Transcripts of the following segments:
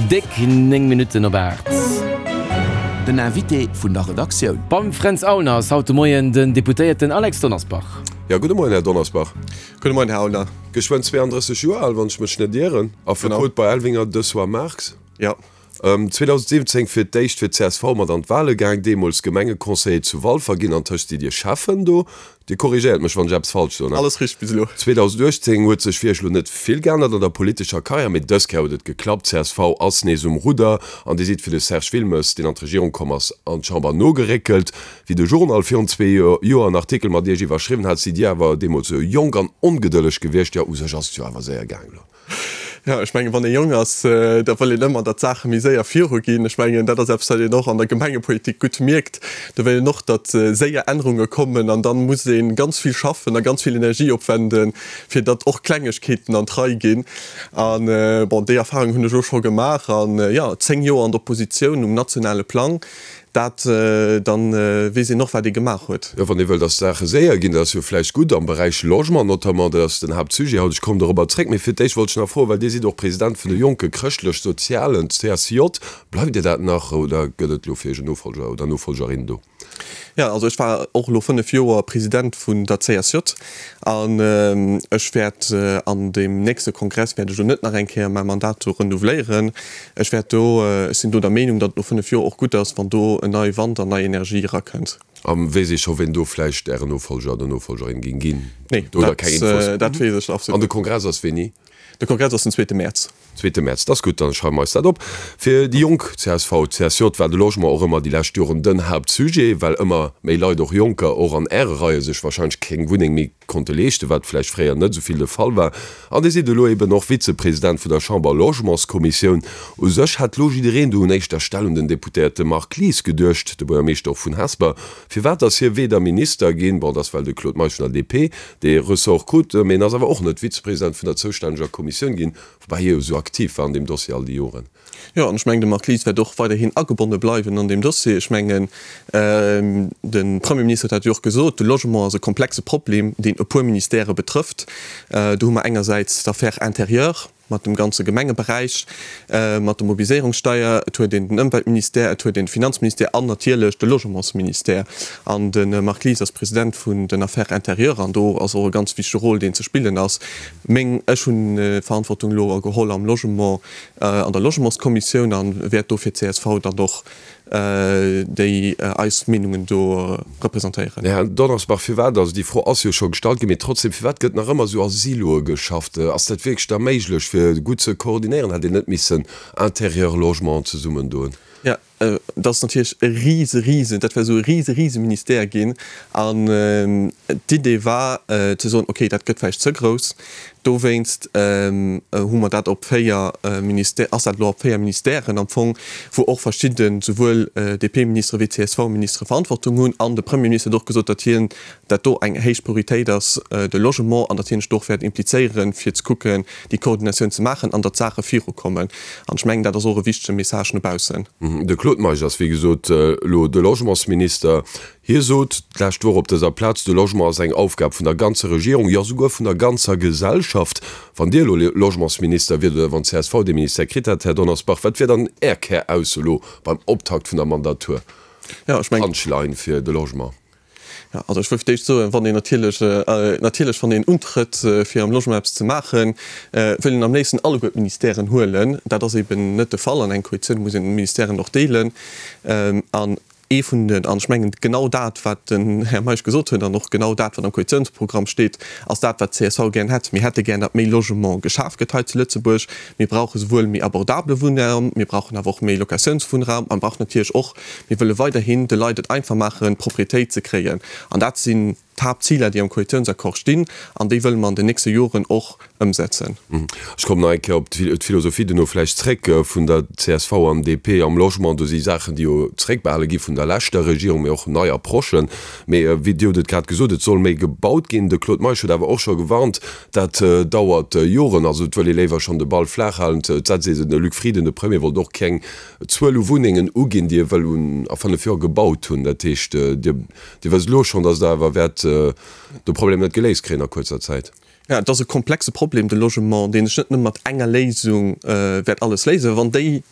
Déck 9 Minutten op 8. Den Invité vun der Redaktioun. Beim Fränz Aulner ass haut de Moien den Deputéierten Alex Donnersbach. Jo, gudde Moien, Här Donnersbach. Gudde Moien, Här Aulner. Geschwënn 32 Joer al, wann ech mech net ieren. Affekot bei Elvinger, Dessoir, Marx. Jo. 2017 fir d'éischt fir d'CSV mat an d'Wale gaang, deemools Gemengeconseiller zu Walfer ginn. Antëscht sidd Dir Schäffen do. Dir korrigéiert mech, wann ech eppes falsch soen. Alles richteg bis elo. 2018 huet sech fir Iech elo net vill geännert an der politescher Karriär, mee dës Kéier huet et geklappt, csv ass nees um Rudder an Dir sidd fir de Serge Wilmes, deen an d'Regierung komm ass, an d'Chamber nogeréckelt. Wéi de Journal virun zwee Joer en Artikel mat Iech iwwerschriwwen hat, sidd Dir awer deemools esou jonk an ongedëlleg gewiescht. Jo, u sech ass et jo awer séier gaang elo. Jo, ech mengen, wann ee jonk ass, da wëll een ëmmer, datt d'Saache méi séier viruginn. Ech mengen, dat ass eppes, wat een och an der Gemengepolitik gutt mierkt. Do wëll een och, datt séier Ännerunge kommen an dann muss ee ganz vill schaffen a ganz vill Energie opwenden, fir datt och Klengegkeeten an d'Rei ginn. A bon, déi Erfahrung hunn ech och scho gemaach. An jo, 10 Joer an der Oppositioun um nationale Plang, Dat, dann weess een och, wat ee gemaach huet. Jo, wann ee wëll, datt d'Saache séier ginn, dat ass jo vläicht gutt am Beräich Logement notamment, dat ass den Haaptsujet haut, ech kommen dorobber zréck. Mee fir d'éischt wollt ech nach froen, well Dir sidd och President vun de Jonke Chrëschtlech-Sozialen, CSJ, bleift Dir dat nach oder gëtt et elo fir Iech en Nofolger oder Nofolgerin do? Jo, also ech war och elo 5 Joer President vun der CSJ an ech wäert an deem nächste Kongress wäert ech elo net nach eng Kéier mäi Mandat do renouveléieren. Ech wäert do, ech sinn do der Meenung, datt et no 5 Joer och gutt ass, wann do en neie Wand an nei Energie erakënnt. A weess ee scho ween do vläicht Ären Nofolger oder Nofolgerin géing ginn? Nee, Oder keng Infos? dat weess ech absolut An de net. Kongress ass wéini? De Kongress ass den zweete Mäerz. Zweete Mäerz, dat ass gutt, dann schreiwe mer eis dat op. Fir déi Jonk, csv, CSJ, war de Logement och ëmmer déi lescht Joren den Haaptsujet, well ëmmer méi Leit, och Jonker, och an Äre Reie sech wahrscheinlech keng Wunneng méi konnte leeschten, wat vläicht fréier net esou vill de Fall war. An Dir sidd elo eben och Vizepresident vun der Chamber-Logementskommissioun. U sech hätt lo jiddereen do un éischter Stell un den Deputéierte Marc Lies geduecht, de Buergermeeschter och vun Hesper. Firwat ass hie weder Minister ginn, bon, et ass well de Claude Meisch vun der DP dee Ressort krut, mee en ass awer och net Vizepresident vun der zoustänneger Kommissioun ginn, woubäi hie jo esou aktiv war an deem Dossier all déi Joren. Jo, an ech mengen, de Marc Lies wäert och weiderhin agebonne bleiwen an deem Dossier. Ech mengen, de Premierminister huet dat jo och gesot, de Logement ass e komplexe Problem, deen e puer Ministèrë betrëfft. Do hu mer engersäits d'Affaires intérieures mat dem ganze Gemengeberäich, mat der Mobiliséierungssteier, et huet een den Ëmweltministère, et huet een de Finanzministère an natierlech de Logementsministère. An de Marc Lies ass President vun den Affaires intérieures an do ass och e ganz wichtege Rôle, deen ze spillen ass. Meng, ech hunn d'Verantwortung elo geholl am Logement, an der Logementskommissioun a wäert do fir d'CSV dann och déi eis Meenungen do representéieren. Här Donnersbach, firwat, also déi Fro ass jo scho gestallt ginn, mee trotzdem, firwat gëtt nach ëmmer esou a Siloe geschafft? Ass dat wierklech da méiglech, fir gutt ze koordinéieren? Hätt een net missen Intérieur, Logement zesummen doen? Jo, dat ass natierlech e rise, rise, dat wär esou e rise, rise Ministère ginn. An d'Idee war ze soen, okay, dat gëtt vläicht ze grouss, Dowéinst hu mer dat op 4 Ministè, ass dat elo op 4 Ministèren am Fong, wou och verschidde souwuel DP-Ministere wéi CSV-Ministere Verantwortung hunn. An de Premierminister huet och gesot, datt hien dat do eng héich Prioritéit ass, de Logement, an datt hien sech do och wäert implizéieren, fir ze kucken, déi Koordinatioun ze maachen an datt d'Saache virukommen. An ech mengen, dat ass och e wichtege Message no baussen. De Claude Meisch ass, wéi gesot, elo de Logementsminister. Hie sot d'lescht Woch op dëser Plaz, de Logement ass eng Aufgab vun der ganzer Regierung, jo souguer vun der ganzer Gesellschaft. Wann Dir elo Logementsminister wiert oder wann csv dee Ministère kritt hätt, Här Donnersbach, wat wier dann Är Kärausso elo beim Optakt vun der Mandatur? Jo, ech mengen. Punchline fir de Logement. Jo, also ech wëll fir d'éischt soen, wann een natierlech, natierlech wann een untrëtt fir am Logement eppes ze maachen, wëll een am léifsten alleguer d'Ministèren huelen. Dat ass eben net de Fall. An eng Koalitioun muss een d'Ministèren och deelen. An Ee vun den, an ech mengen genau dat, wat den Här Meisch gesot huet, an och genau dat, wat am Koalitiounsprogramm steet, ass dat, wat d'CSV gären hätt. Mir hätte gär, datt méi Logement geschaf gëtt hei zu Lëtzebuerg. Mir brauche souwuel méi abordabele Wunnraum, mir brauchen awer och méi Locatiounswunnraum a mir brauchen natierlech och, mir wëlle weiderhin de Leit et einfach maachen, Propriétéit ze kréien. An dat sinn d'Haaptziler, déi am Koalitiounsaccord stinn, an déi wëlle mer an den nächste Joren och ëmsetzen. Ech kommen nach eng Kéier op d'Philosophie duerno vläicht zréck vun der csv an DP am Logement. Do si Saachen, déi jo zréckbehale gi vun der leschter Regierung, mee och nei Approchen. Mee wéi Dir hutt et grad gesot, et soll méi gebaut ginn. De Claude Meisch huet awer och scho gewarnt, dat dauert Joren. Also et wëll ee léiwer schonn de Ball flaach halen. Et setzt ee se. De Luc Frieden, de Premier, wollt och keng Zuel u Wunnengen uginn, déi e wëll a 5 Joer gebaut hunn. Dat heescht, Dir Dir wësst elo schonn, datt Der awer wäert de Problem net geléist kréien a kuerzer Zäit. Jo, et ass e komplexe Problem, de Logement, deen sech net nëmme mat enger Léisung wäert alles léisen. Wann déi.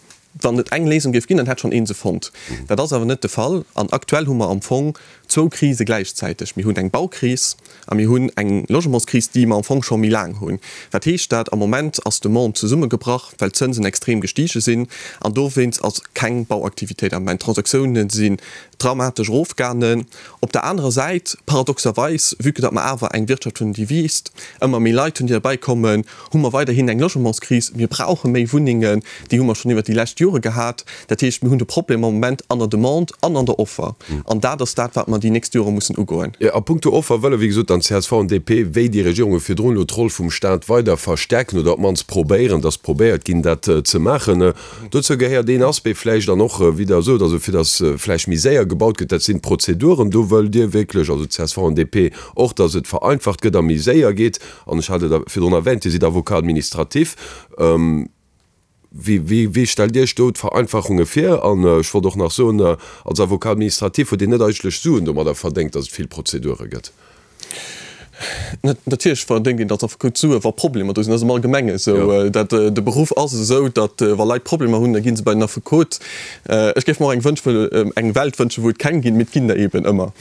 Wann et eng Léisung géif ginn, dann hätt schonn ee se fonnt. Dat ass awer net de Fall. An aktuell hu mer am Fong zwou Krise gläichzäiteg. Mir hunn eng Baukris a mir hunn eng Logementskris, déi mer am Fong scho méi laang hunn. Wat heescht dat? Am Moment ass d'Demande zesummegebrach, well d'Zënsen extrem gestige sinn. An dowéinst ass keng Bauaktivitéit am Moment. D'Transaktiounen sinn dramatesch erofgaangen. Op der anerer Säit, paradoxerweis, vue que datt mer awer eng Wirtschaft hunn, déi wiisst, ëmmer méi Leit hunn, déi derbäikommen, hu mer weiderhin eng Logementskris. Mir brauche méi Wunnengen, déi hu mer schonn iwwert déi lescht Jore gehat. Dat heescht, mir hunn de Problem am Moment an der Demande an an der Offer. An dat ass dat, wat mer déi nächst Jore mussen ugoen. A puncto Offer wëlle wéi gesot dann csv an DP, wéi déi Regierunge virdrun, elo d'Roll vum Staat weider verstärken oder op d'mannst probéieren, dass probéiert ginn, dat ze maachen. Dozou gehéiert een Aspect vläicht an och, wéi Der sot, also fir dass vläicht méi séier gebaut gëtt, dat sinn d'Prozeduren. Do wëllt Dir wierklech, also csv an DP, och, dass et vereinfacht gëtt a méi séier geet. An ech hat et virdrun erwähnt, Dir sidd Avocat administratif. Wéi, wéi stellt Dir Iech do d'Vereinfachunge vir? An ech wollt och nach soen, als Avocat administratif huet een net eigentlech Suen domadder verdéngt, dass et vill Prozedure gëtt. Natierlech verdéngt een als Affekot Suen, wa Problemer do sinn. Dat ass am Allgemenge esou. Dat, de Beruff ass esou, datt wa Leit Problemer hunn, da gi se bei den Affekot. Ech géif mer och eng wënsch, eng Welt wënschen, wou et keng ginn, mee et ginn der eeben ëmmer.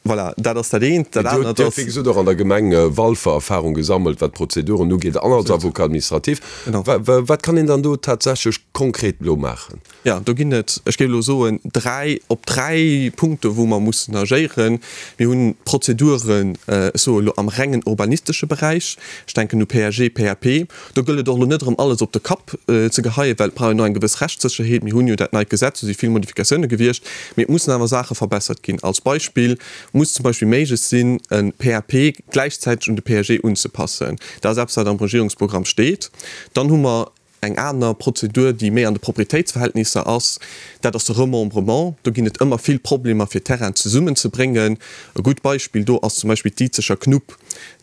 Voilà, dat ass dat eent. Dat anert ass. Dir hutt, wéi gesot, och an der Gemeng Walfer Erfahrung gesammelt, wat d'Prozeduren ugeet, an als Avocat administratif. Wat kann een dann do tatsächlech konkret elo maachen? Jo, do ginn et, ech géif elo soen, dräi, op dräi Punkte wou mer mussen agéieren. Mir hunn d'Prozeduren, ech soe elo am rengen urbanistesche Beräich, ech denken u PAG, PAP. Do gëllt et och elo net erëm alles op de Kapp ze geheien, well et brauch een och eng gewëss Rechtssécherheet. Mir hunn jo dat neit Gesetz, do si vill Modifikatioune gewiescht, mee et mussen awer Saache verbessert ginn. Als Beispill muss zum Beispill méiglech sinn, e PAP gläichzäiteg un de PAG unzepassen. Dat ass eppes, wat am Regierungsprogramm steet. Dann hu mer Eng aner Prozedur, déi méi an de Proprietéitsverhältnisser ass, dat ass de Remembrement. Do ginn et ëmmer vill Problemer, fir Terrainen zesummenzebréngen. E gutt Beispill do ass zum Beispill d'Izeger Knupp,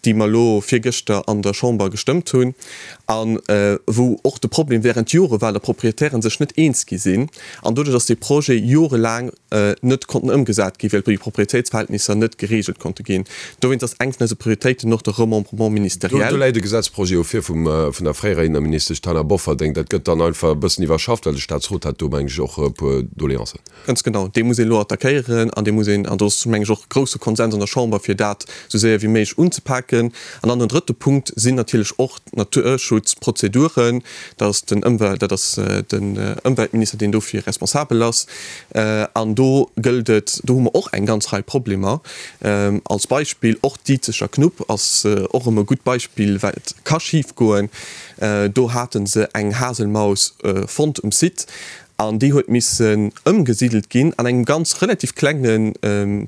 déi mer elo virgëschter an der Chamber gestëmmt hunn a wou och de Problem während Jore war, datt Proprietären sech net eens gi sinn an doduerch ass dee Projet jorelaang net konnten ëmgesat ginn, well déi Proprietéitsverhältnisser net geregelt konnte ginn. Dowéinst ass eng vun eise Prioritéiten och de Remembrement ministériel. Do läit e Gesetzprojet jo vir vum, vun der fréierer Inneministesch Taina Bofferding. Dat gëtt dann einfach e bëssen iwwerschafft, well de Staatsrot hat do, meng ech, och e puer Doleancen. Ganz genau. Dee muss een elo attackéieren an dee muss een, an do ass, meng ech, och grousse Konsens an der Chamber, fir dat esou séier wéi méiglech unzepaken. An dann den drëtte Punkt sinn natierlech och d'Naturschutzprozeduren. Dat ass den Ëmwelt, dat ass den Ëmweltminister, deen dofir responsabel ass. An do gëllt et, do hu mer och eng ganz Rei Problemer. Als Beispill, och d'Izeger Knupp ass och erëm e gutt Beispill, wat ka schifgoen. Do hate se eng Haselmaus fonnt um Site an déi huet missen ëmgesidelt ginn an engem ganz relativ klenge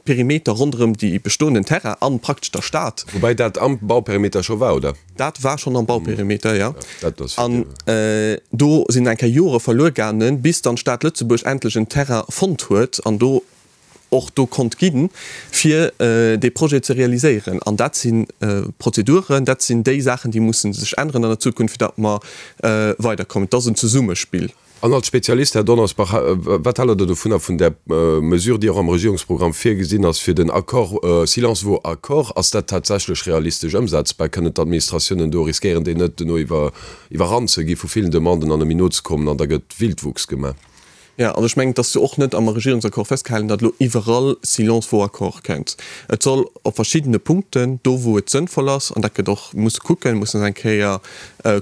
Perimeter ronderëm déi bestoenden Terrain an praktesch der Stad. Woubäi dat am Bauperimeter scho war, oder? Dat war schonn am Bauperimeter, jo. An do sinn eng Kéier Jore verluer gaangen, bis dann d'Stad Lëtzebuerg endlech en Terrain fonnt huet an do och do konnt ginn, fir dee Projet ze realiséieren. An dat si Prozeduren, dat sinn déi Saachen, déi musse sech änneren an der Zukunft, fir datt mer weiderkommen. Et ass en Zesummespill. An als Spezialist, Här Donnersbach, wat haalt Der dovunner, vun där Mesure, déi och am Regierungsprogramm virgesinn ass, fir den Accord, silence vaut accord? Ass dat tatsächlech realistesch ëmsetzbar? Kënnen d'Administratiounen do riskéieren déi net, duerno iwwerrannt ze gi vu villen Demanden an net méi nozekommen an da gëtt Wildwuchs gemaach? Jo, also ech mengen, et ass jo och net am Regierungsaccord festgehalen, datt elo iwwerall silence vaut accord kënnt. Et soll op verschiddene Punkten, do wou et sënnvoll ass, an dat gëtt och, muss kucken, mussen eng Kéier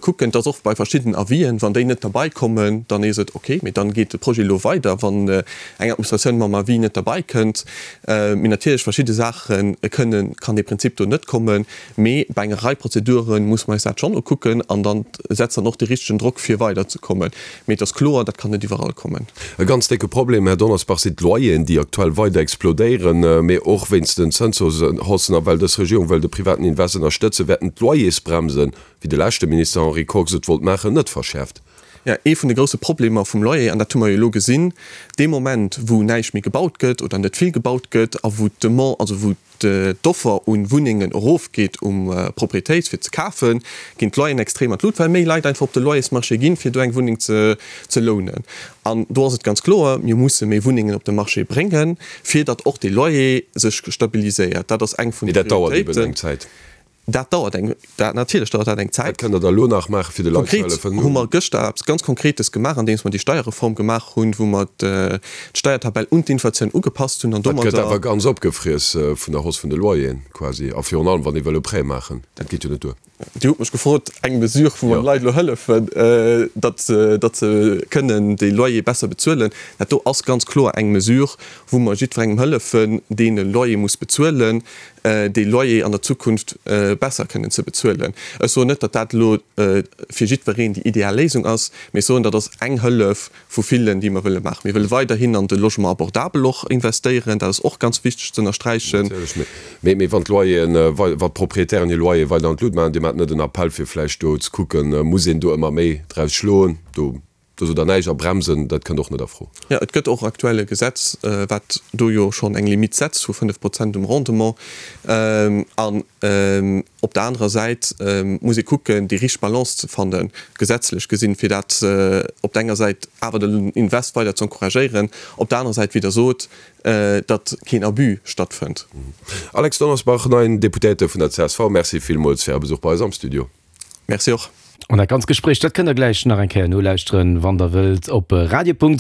Kucken, dass och bei verschidden Avisen, wann déi net derbei kommen, dann ees et ok, mee dann geet de Projet elo weider, wann eng Administratioun mam Avis net derbei kënnt. Mee natierlech verschidde Saache kënnen, kann dee Prinzip do net kommen, mee bei enger Rei Prozedure muss mer eis dat schonn ukucken an dann setzt dann och dee richtegen Drock fir weider ze kommen. Mee et ass kloer, dat kann net iwwerall kommen. E ganz décke Problem, Här Donnersbach, sinn d'Loyeren, déi aktuell weider explodéieren. Mee och wéinst den Zënshaussen a well dës Regierung wëll de privaten Invest ënnerstëtzen, wäerten d'Loyersbremsen, wéi de leschte Minister Henri Kox et wollt maachen, net verschäerft. Jo, ee vun de grousse Problemer vum Loyer, an dat hu mer jo elo gesinn, dee Moment wou näischt méi gebaut gëtt oder net vill gebaut gëtt a wou d'Demande, also wou d'Offer u Wunnengen erofgeet um Proprietéit fir ze kafen, ginn d'Loyeren extrem an d'Lut, well méi Leit einfach op de Loyersmarché ginn, fir do eng Wunneng ze lounen. An do ass et ganz kloer, mir musse méi Wunnengen op de Marché bréngen, fir datt och de Loyer sech stabiliséiert. Dat ass eng vun de Prioritéiten. Mee dat dauert eben eng Zäit. Dat dauert eng, dat natierlech dauert dat eng Zäit. Wat kënnt Der da elo nach maachen, fir de Leit ze Konkret hëllefen? hu mer gëschter eppes ganz Konkretes gemaach, andeems mer déi Steierreform gemaach hunn, wou mer d'Steiertabell un d'Inflatioun ugepasst hunn an Dat gëtt domadder. awer ganz opgefriess vun der Hausse vun de Loyeren quasi a virun allem, wann ee wëll e Prêt maachen. Dat geet jo net duer. Dir hutt mech gefrot, eng Mesure, wou mer de Leit elo hëllefen, datt datt se kënnen de Loyer besser bezuelen. Dat do ass ganz kloer eng Mesure, wou mer jiddwerengem hëllefen, deen e Loyer muss bezuelen, dee Loyer an der Zukunft besser kënnen ze bezuelen. Ech soen net, datt dat elo fir jiddwereen déi ideal Léisung ass, mee ech soen, dat ass eng Hëllef, vu villen, déi mer wëlle maachen. Mir wëlle weiderhin an de Logement abordable och investéieren. Dat ass och ganz wichteg ze ënnersträichen. Natierlech. Mee, mee wann d'Loyeren, wann d'Proprietären hir Loyer weider an d'Lut maachen, Dir maacht net en Appell, fir vläicht do ze kucken, muss een do ëmmer méi draus schloen? Do, do sot Der näischt. A bremsen, dat kënnt och net a Fro. Jo, et gëtt och aktuell e Gesetz, wat do jo schonn eng Limite setzt vu 5 Prozent um Rendement. An op der anerer Säit muss ee kucken, déi richteg Balance ze fannen, gesetzlech gesinn, fir dat op der enger Säit awer den Invest weider ze encouragéieren, op der anerer Säit, wéi Der sot, datt keen Abus stattfënnt. Alex Donnersbach, neien Deputéierte vun der csv, Merci villmools fir Är Besuch bei eis am Studio. Merci och. An dat ganz Gespréich, dat kënnt der gläich nach eng Kéier nolauschteren, wann der wëllt, op radio.rtl.lu.